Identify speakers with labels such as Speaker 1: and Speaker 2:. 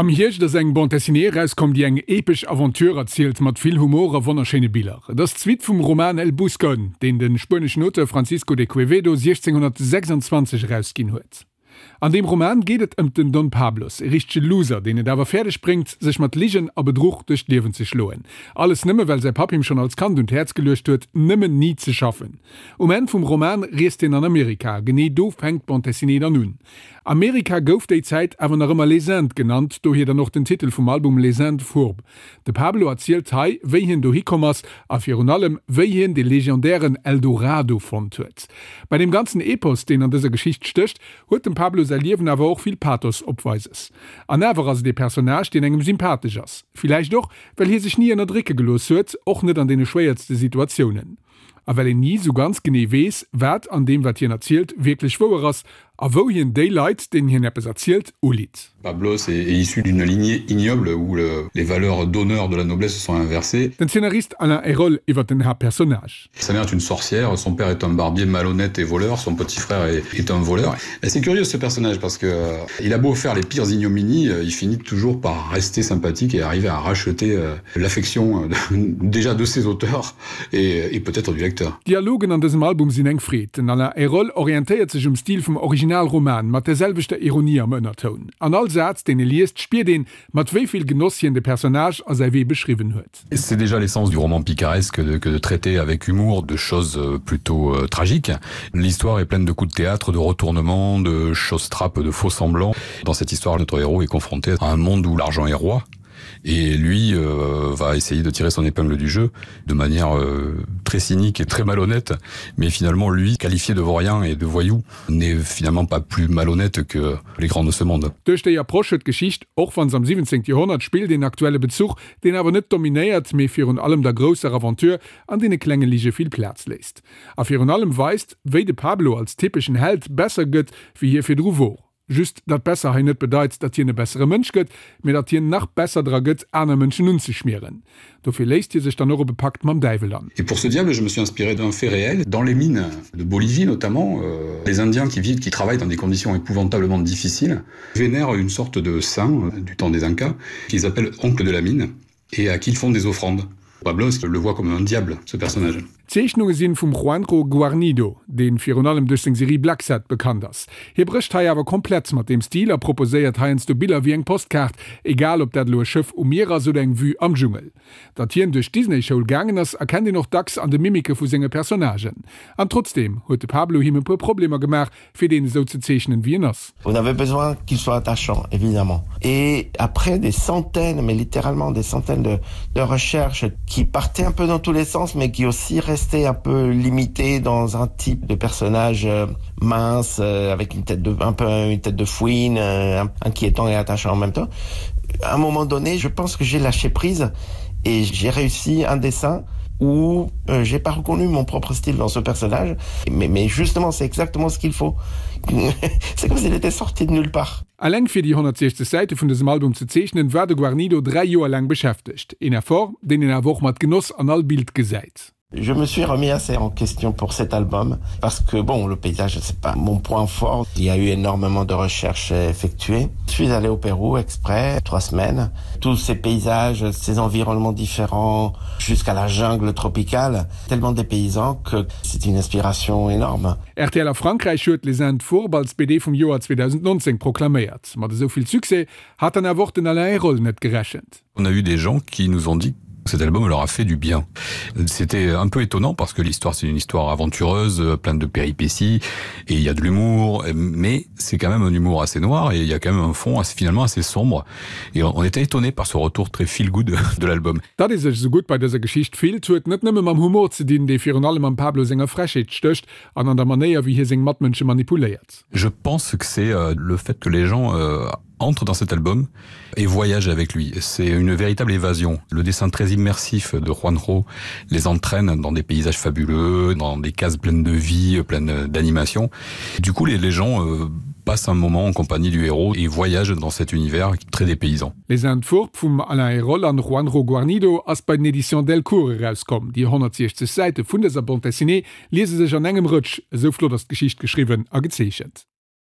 Speaker 1: Am Hierscht ass eng Bande Dessinée erauskomm, déi eng epesch Aventure erzielt, mat vill Humor a wonnerschéine Biller. Et ass d'Suite vum Roman El Buscón, deen de spueneschen Auteur Francisco de Quevedo 1626 erausginn huet. An deem Roman geet et ëmt den Don Pablos, e richtege Loser, deen et awer fäerdeg bréngt, sech mat Ligen a Bedruch duerch d'Liewen ze schloen. Alles nëmme well säi Papp him schonn als Kand un d'Häerz geluecht huet, nëmmen ni ze schaffen. Um Enn vum Roman reest hien an Amerika, genee do fänkt d'Bande Dessinée dann un. Amerika gouf déi Zäit awer nach ëmmer Les Indes genannt, dohier dann och den Titel vum Album Les Indes fourbes. De Pablo erzielt hei, wéi hien dohi komm ass a virun allem, wéi hien de legendären El Dorado fonnt huet. Bei deem ganzen Epos, deen an dëser Geschicht stécht, huet dem Pablo säi Liewen awer och vill Pathos opweises. An awer ass et ee Personnage, deen engem sympathesch ass. Villäicht och, well hie sech ni ënnerdrécke gelooss huet, och net an deene schwéiertste Situatiounen. A well een ni sou ganz genee weess, wat an deem, wat hien erzielt, wierklech wouer ass a wou hien déi Leit, deenen hien eppes erzielt, ulitt.
Speaker 2: Pablos est issu d'une lignée ignoble où les valeurs d'honneur de la noblesse se sont inversées.
Speaker 1: Den Zeenarist Alain Ayroles iwwer den Haaptpersonnage.
Speaker 2: Sa mère est une sorcière, son père est un barbier malhonnête et voleur, son petit frère est, est un voleur. Et c'est curieux ce personnage parce que euh, il a beau faire les pires ignominies, euh, il finit toujours par rester sympathique et arriver à racheter euh, l'affection déjà de ses auteurs et, et peut-être du lecteur.
Speaker 1: D'Dialogen an dësem Album sinn eng Freed. Den Alain Ayroles orientéiert sech um Stil vum Originalroman, mat der selwechter Ironie am Ënnertoun. An all Saz, deen e liest, spiert een, mat wéi vill Genoss hien de Personnage a säi Wee beschriwwen huet.
Speaker 2: C'est déjà l'essence du roman picaresque de, que de traiter avec humour de choses euh, plutôt euh, tragiques. L'histoire est pleine de coups de théâtre, de retournements, de choses trappes, de faux semblants. Dans cette histoire, notre héros est confronté à un monde où l'argent est roi et lui euh, va essayer de tirer son épingle du jeu de manière euh, très cynique et très malhonnête mais finalement lui qualifié de vaurien et de voyou n'est finalement pas plus malhonnête que les grands de ce monde.
Speaker 1: Duerch déi Approche huet d'Geschicht, och wann s'am 17. Joerhonnert spillt, een aktuelle Bezuch, deen awer net dominéiert, mee virun allem der grousser Aventure an deene klenge Lige vill Plaz léisst. A virun allem weist, wéi de Pablo als typeschen Held besser gëtt, wéi hie virdru wor. Just datt besser hei net bedeit, datt hien e bessere Mënsch gëtt, mee datt hien nach besser dra gëtt, aner Mënschen unzeschmieren. Dofir léisst hie sech dann och op e Pakt mam Däiwel an.
Speaker 2: Et pour ce diable, je me suis inspiré d'un fait réel, dans les mines de Bolivie notamment, les Indiens qui vivent, qui travaillent dans des conditions épouvantablement difficiles, vénèrent une sorte de saint du temps des Incas, qu'ils appellent oncle de la mine et à qui ils font des offrandes. Pablos le voit comme un diable, ce personnage.
Speaker 1: D'Zeechnunge sinn vum Juanjo Guarnido, deen virun allem duerch seng Serie Blacksad bekannt ass. Hie brécht hei awer komplett mat deem Stil a proposéiert heiansdo Biller wéi eng Postkaart, egal ob dat elo e Schëff um Mier ass oder eng Vue am Dschungel. Datt hien duerch d'Disney-Schoul gaangen ass, erkennt een och dacks an de Mimike vu senge Personnagen. An trotzdeem huet de Pablo him e puer Problemer gemaach, fir deen esou ze zeechnen, wéi en ass.
Speaker 3: On avait besoin qu'il soit attachant, évidemment. Et après des centaines, mais littéralement des centaines de, de recherches qui partaient un peu dans tous les sens, mais qui aussi restaient un peu limitées dans un type de personnage euh, mince, euh, avec une tête de, un peu une tête de fouine, euh, inquiétant et attachant en même temps. À un moment donné, je pense que j'ai lâché prise et j'ai réussi un dessin où euh, j'ai pas reconnu mon propre style dans ce personnage mais, mais justement c'est exactement ce qu'il faut c'est comme s'il était sorti de nulle part.
Speaker 1: Alleng fir déi 160 Säite vun dësem Album ze zeechnen, war de Guarnido 3 Joer laang beschäftegt. Een Effort, deen een awer och mat Genoss an all Bild gesäit.
Speaker 3: Je me suis remis assez en question pour cet album parce que bon le paysage c'est pas mon point fort il y a eu énormément de recherches effectuées je suis allé au Pérou exprès trois semaines tous ces paysages ces environnements différents jusqu'à la jungle tropicale tellement des paysans que c'est une inspiration énorme.
Speaker 1: RTL a Frankräich huet Les Indes Fourbes als BD vum Joer 2019 proklaméiert. Mat esou vill Succès hat dann awer och den Alain Ayroles net gerechent.
Speaker 2: On a eu des gens qui nous ont dit cet album leur a fait du bien. C'était un peu étonnant parce que l'histoire c'est une histoire aventureuse, pleine de péripéties et il y a de l'humour, mais c'est quand même un humour assez noir et il y a quand même un fond assez, finalement assez sombre et on était étonné par ce retour très feel good de l'album.
Speaker 1: Datt ee sech esou gutt bei dëser Geschicht fillt, huet net nëmme mam Humor ze dinn, dee virun allem am Pablo senger Frechheet stécht an an der Manéier, wéi hie seng Matmënsche manipuléiert.
Speaker 2: Je pense que c'est euh, le fait que les gens euh, entrent dans cet album et voyagent avec lui. C'est une véritable évasion. Le dessin très immersif de Juanjo les entraîne dans des paysages fabuleux, dans des cases pleines de vie, pleines d'animation. Du coup, les, les gens euh, passent un moment en compagnie du héros et voyagent dans cet univers très dépaysant.
Speaker 1: Les Indes Fourbes vum Alain Ayroles an Juanjo Guarnido ass bei den Éditions Delcourt erauskomm. Déi 160 Säite vun dëser Bande dessinée liese sech an engem Rëtsch, esou flott ass d'Geschicht geschriwwen a gezeechent.